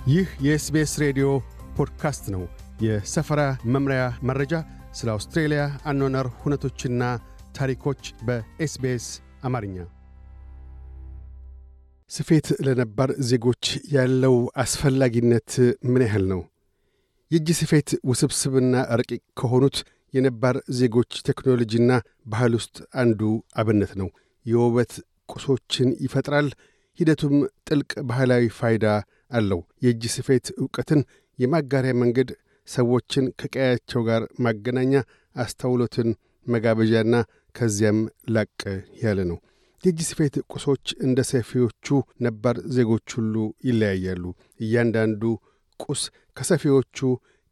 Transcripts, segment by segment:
ይህ የኤስቢኤስ ሬዲዮ ፖድካስት ነው። የሰፈራ መምሪያ መረጃ፣ ስለ አውስትሬሊያ አኗኗር ሁነቶችና ታሪኮች በኤስቢኤስ አማርኛ። ስፌት ለነባር ዜጎች ያለው አስፈላጊነት ምን ያህል ነው? የእጅ ስፌት ውስብስብና ረቂቅ ከሆኑት የነባር ዜጎች ቴክኖሎጂና ባህል ውስጥ አንዱ አብነት ነው። የውበት ቁሶችን ይፈጥራል። ሂደቱም ጥልቅ ባህላዊ ፋይዳ አለው። የእጅ ስፌት ዕውቀትን የማጋሪያ መንገድ፣ ሰዎችን ከቀያቸው ጋር ማገናኛ፣ አስተውሎትን መጋበዣና ከዚያም ላቅ ያለ ነው። የእጅ ስፌት ቁሶች እንደ ሰፊዎቹ ነባር ዜጎች ሁሉ ይለያያሉ። እያንዳንዱ ቁስ ከሰፊዎቹ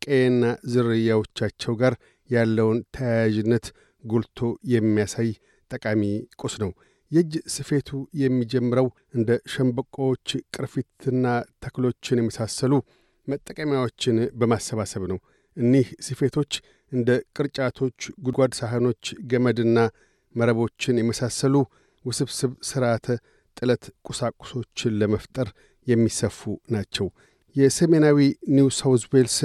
ቀየና ዝርያዎቻቸው ጋር ያለውን ተያያዥነት ጎልቶ የሚያሳይ ጠቃሚ ቁስ ነው። የእጅ ስፌቱ የሚጀምረው እንደ ሸምበቆዎች፣ ቅርፊትና ተክሎችን የመሳሰሉ መጠቀሚያዎችን በማሰባሰብ ነው። እኒህ ስፌቶች እንደ ቅርጫቶች፣ ጉድጓድ ሳህኖች፣ ገመድና መረቦችን የመሳሰሉ ውስብስብ ሥርዓተ ጥለት ቁሳቁሶችን ለመፍጠር የሚሰፉ ናቸው። የሰሜናዊ ኒው ሳውዝ ዌልስ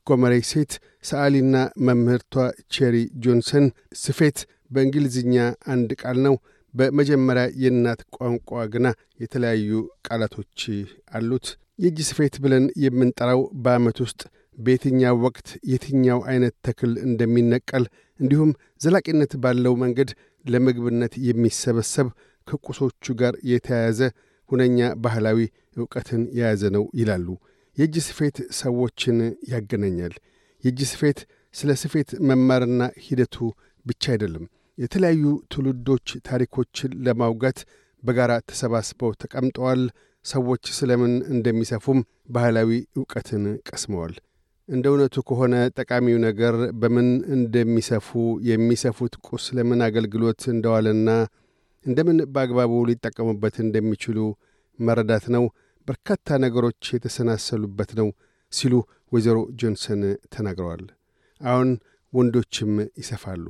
ጎመሬ ሴት ሰዓሊና መምህርቷ ቼሪ ጆንሰን ስፌት በእንግሊዝኛ አንድ ቃል ነው። በመጀመሪያ የእናት ቋንቋ ግና የተለያዩ ቃላቶች አሉት። የእጅ ስፌት ብለን የምንጠራው በዓመት ውስጥ በየትኛው ወቅት የትኛው አይነት ተክል እንደሚነቀል እንዲሁም ዘላቂነት ባለው መንገድ ለምግብነት የሚሰበሰብ ከቁሶቹ ጋር የተያያዘ ሁነኛ ባህላዊ ዕውቀትን የያዘ ነው ይላሉ። የእጅ ስፌት ሰዎችን ያገናኛል። የእጅ ስፌት ስለ ስፌት መማርና ሂደቱ ብቻ አይደለም። የተለያዩ ትውልዶች ታሪኮችን ለማውጋት በጋራ ተሰባስበው ተቀምጠዋል። ሰዎች ስለምን እንደሚሰፉም ባህላዊ ዕውቀትን ቀስመዋል። እንደ እውነቱ ከሆነ ጠቃሚው ነገር በምን እንደሚሰፉ፣ የሚሰፉት ቁስ ለምን አገልግሎት እንደዋለና እንደምን በአግባቡ ሊጠቀሙበት እንደሚችሉ መረዳት ነው። በርካታ ነገሮች የተሰናሰሉበት ነው ሲሉ ወይዘሮ ጆንሰን ተናግረዋል። አሁን ወንዶችም ይሰፋሉ።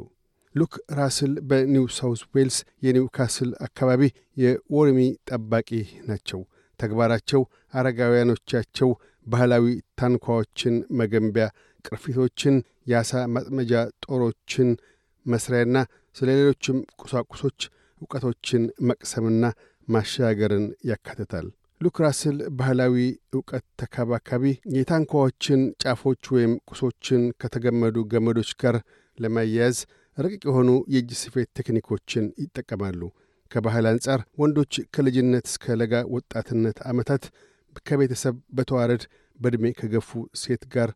ሉክ ራስል በኒው ሳውዝ ዌልስ የኒው ካስል አካባቢ የወርሚ ጠባቂ ናቸው። ተግባራቸው አረጋውያኖቻቸው ባህላዊ ታንኳዎችን መገንቢያ፣ ቅርፊቶችን፣ የአሳ ማጥመጃ ጦሮችን መስሪያና ስለ ሌሎችም ቁሳቁሶች ዕውቀቶችን መቅሰምና ማሻገርን ያካትታል። ሉክ ራስል ባህላዊ ዕውቀት ተካባካቢ የታንኳዎችን ጫፎች ወይም ቁሶችን ከተገመዱ ገመዶች ጋር ለማያያዝ ረቂቅ የሆኑ የእጅ ስፌት ቴክኒኮችን ይጠቀማሉ። ከባህል አንጻር ወንዶች ከልጅነት እስከ ለጋ ወጣትነት ዓመታት ከቤተሰብ በተዋረድ በዕድሜ ከገፉ ሴት ጋር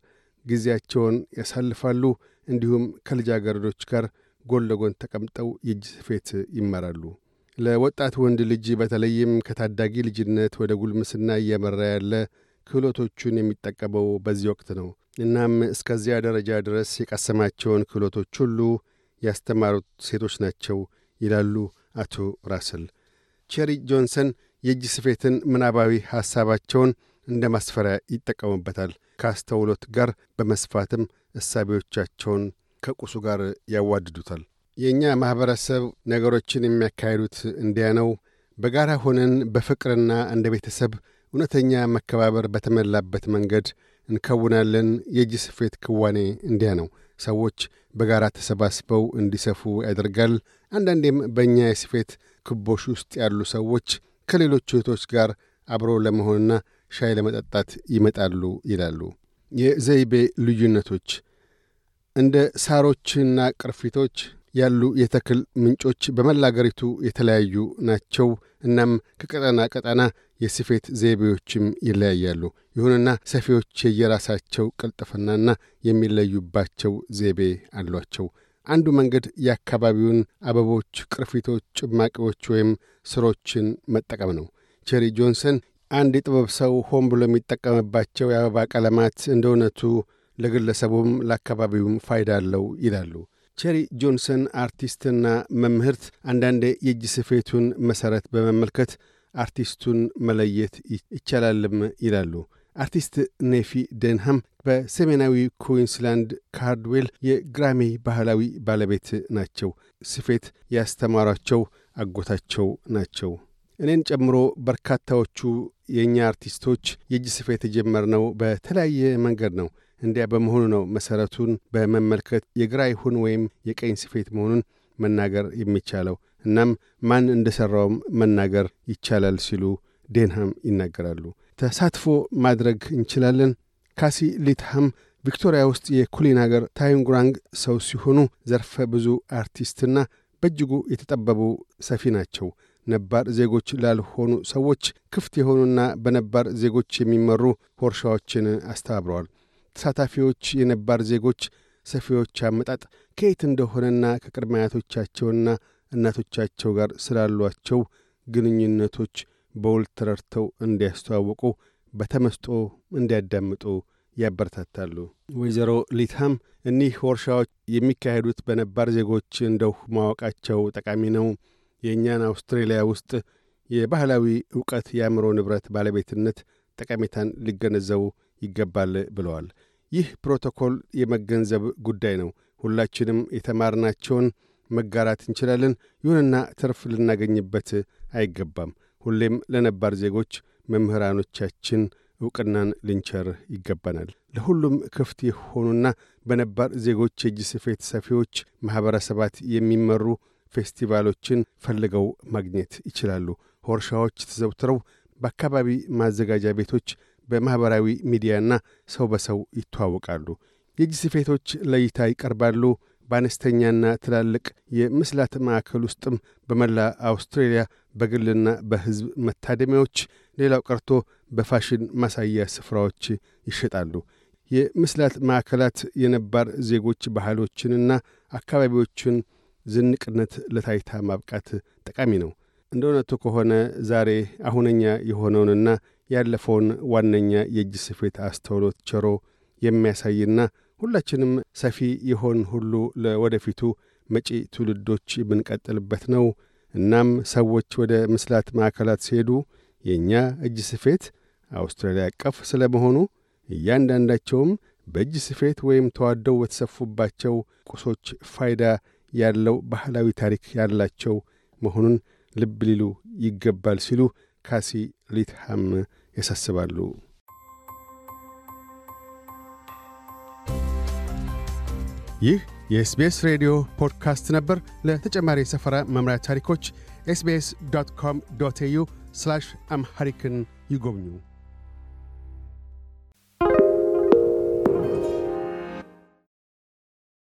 ጊዜያቸውን ያሳልፋሉ። እንዲሁም ከልጃገረዶች ጋር ጎን ለጎን ተቀምጠው የእጅ ስፌት ይማራሉ። ለወጣት ወንድ ልጅ በተለይም ከታዳጊ ልጅነት ወደ ጉልምስና እያመራ ያለ ክህሎቶቹን የሚጠቀመው በዚህ ወቅት ነው። እናም እስከዚያ ደረጃ ድረስ የቀሰማቸውን ክህሎቶች ሁሉ ያስተማሩት ሴቶች ናቸው ይላሉ አቶ ራስል። ቼሪ ጆንሰን የእጅ ስፌትን ምናባዊ ሐሳባቸውን እንደ ማስፈሪያ ይጠቀሙበታል። ከአስተውሎት ጋር በመስፋትም እሳቤዎቻቸውን ከቁሱ ጋር ያዋድዱታል። የእኛ ማኅበረሰብ ነገሮችን የሚያካሂዱት እንዲያ ነው። በጋራ ሆነን በፍቅርና እንደ ቤተሰብ እውነተኛ መከባበር በተመላበት መንገድ እንከውናለን። የእጅ ስፌት ክዋኔ እንዲያ ነው። ሰዎች በጋራ ተሰባስበው እንዲሰፉ ያደርጋል። አንዳንዴም በእኛ የስፌት ክቦሽ ውስጥ ያሉ ሰዎች ከሌሎች እህቶች ጋር አብሮ ለመሆንና ሻይ ለመጠጣት ይመጣሉ ይላሉ። የዘይቤ ልዩነቶች እንደ ሳሮችና ቅርፊቶች ያሉ የተክል ምንጮች በመላ አገሪቱ የተለያዩ ናቸው። እናም ከቀጠና ቀጠና የስፌት ዘይቤዎችም ይለያያሉ። ይሁንና ሰፊዎች የየራሳቸው ቅልጥፍናና የሚለዩባቸው ዘይቤ አሏቸው። አንዱ መንገድ የአካባቢውን አበቦች፣ ቅርፊቶች፣ ጭማቂዎች ወይም ስሮችን መጠቀም ነው። ቼሪ ጆንሰን አንድ የጥበብ ሰው ሆን ብሎ የሚጠቀምባቸው የአበባ ቀለማት እንደ እውነቱ ለግለሰቡም ለአካባቢውም ፋይዳ አለው ይላሉ። ቼሪ ጆንሰን አርቲስትና መምህርት፣ አንዳንዴ የእጅ ስፌቱን መሠረት በመመልከት አርቲስቱን መለየት ይቻላልም ይላሉ። አርቲስት ኔፊ ደንሃም በሰሜናዊ ኩዊንስላንድ ካርድዌል የግራሚ ባህላዊ ባለቤት ናቸው። ስፌት ያስተማሯቸው አጎታቸው ናቸው። እኔን ጨምሮ በርካታዎቹ የኛ አርቲስቶች የእጅ ስፌት የጀመርነው በተለያየ መንገድ ነው። እንዲያ በመሆኑ ነው መሰረቱን በመመልከት የግራ ይሁን ወይም የቀኝ ስፌት መሆኑን መናገር የሚቻለው። እናም ማን እንደሰራውም መናገር ይቻላል ሲሉ ዴንሃም ይናገራሉ። ተሳትፎ ማድረግ እንችላለን። ካሲ ሊትሃም ቪክቶሪያ ውስጥ የኩሊናገር ታዩንግራንግ ሰው ሲሆኑ ዘርፈ ብዙ አርቲስትና በእጅጉ የተጠበቡ ሰፊ ናቸው። ነባር ዜጎች ላልሆኑ ሰዎች ክፍት የሆኑና በነባር ዜጎች የሚመሩ ወርሻዎችን አስተባብረዋል። ተሳታፊዎች የነባር ዜጎች ሰፊዎች አመጣጥ ከየት እንደሆነና ከቅድመ አያቶቻቸውና እናቶቻቸው ጋር ስላሏቸው ግንኙነቶች በውል ተረድተው እንዲያስተዋውቁ በተመስጦ እንዲያዳምጡ ያበረታታሉ። ወይዘሮ ሊትሃም እኒህ ወርሻዎች የሚካሄዱት በነባር ዜጎች እንደው ማወቃቸው ጠቃሚ ነው። የእኛን አውስትራሊያ ውስጥ የባህላዊ ዕውቀት የአእምሮ ንብረት ባለቤትነት ጠቀሜታን ሊገነዘቡ ይገባል ብለዋል። ይህ ፕሮቶኮል የመገንዘብ ጉዳይ ነው። ሁላችንም የተማርናቸውን መጋራት እንችላለን። ይሁንና ትርፍ ልናገኝበት አይገባም። ሁሌም ለነባር ዜጎች መምህራኖቻችን ዕውቅናን ልንቸር ይገባናል። ለሁሉም ክፍት የሆኑና በነባር ዜጎች የእጅ ስፌት ሰፊዎች ማኅበረሰባት የሚመሩ ፌስቲቫሎችን ፈልገው ማግኘት ይችላሉ። ወርሻዎች ተዘውትረው በአካባቢ ማዘጋጃ ቤቶች፣ በማኅበራዊ ሚዲያና ሰው በሰው ይተዋወቃሉ። የእጅ ስፌቶች ለእይታ ይቀርባሉ። በአነስተኛና ትላልቅ የምስላት ማዕከል ውስጥም በመላ አውስትራሊያ በግልና በሕዝብ መታደሚያዎች፣ ሌላው ቀርቶ በፋሽን ማሳያ ስፍራዎች ይሸጣሉ። የምስላት ማዕከላት የነባር ዜጎች ባህሎችንና አካባቢዎችን ዝንቅነት ለታይታ ማብቃት ጠቃሚ ነው። እንደ እውነቱ ከሆነ ዛሬ አሁነኛ የሆነውንና ያለፈውን ዋነኛ የእጅ ስፌት አስተውሎት ቸሮ የሚያሳይና ሁላችንም ሰፊ የሆን ሁሉ ለወደፊቱ መጪ ትውልዶች ብንቀጥልበት ነው። እናም ሰዎች ወደ ምስላት ማዕከላት ሲሄዱ የእኛ እጅ ስፌት አውስትራሊያ አቀፍ ስለመሆኑ እያንዳንዳቸውም በእጅ ስፌት ወይም ተዋደው በተሰፉባቸው ቁሶች ፋይዳ ያለው ባህላዊ ታሪክ ያላቸው መሆኑን ልብ ሊሉ ይገባል ሲሉ ካሲ ሊትሃም ያሳስባሉ። ይህ የኤስቢኤስ ሬዲዮ ፖድካስት ነበር። ለተጨማሪ የሰፈራ መምሪያ ታሪኮች sbs.com.au/amharican ይጎብኙ።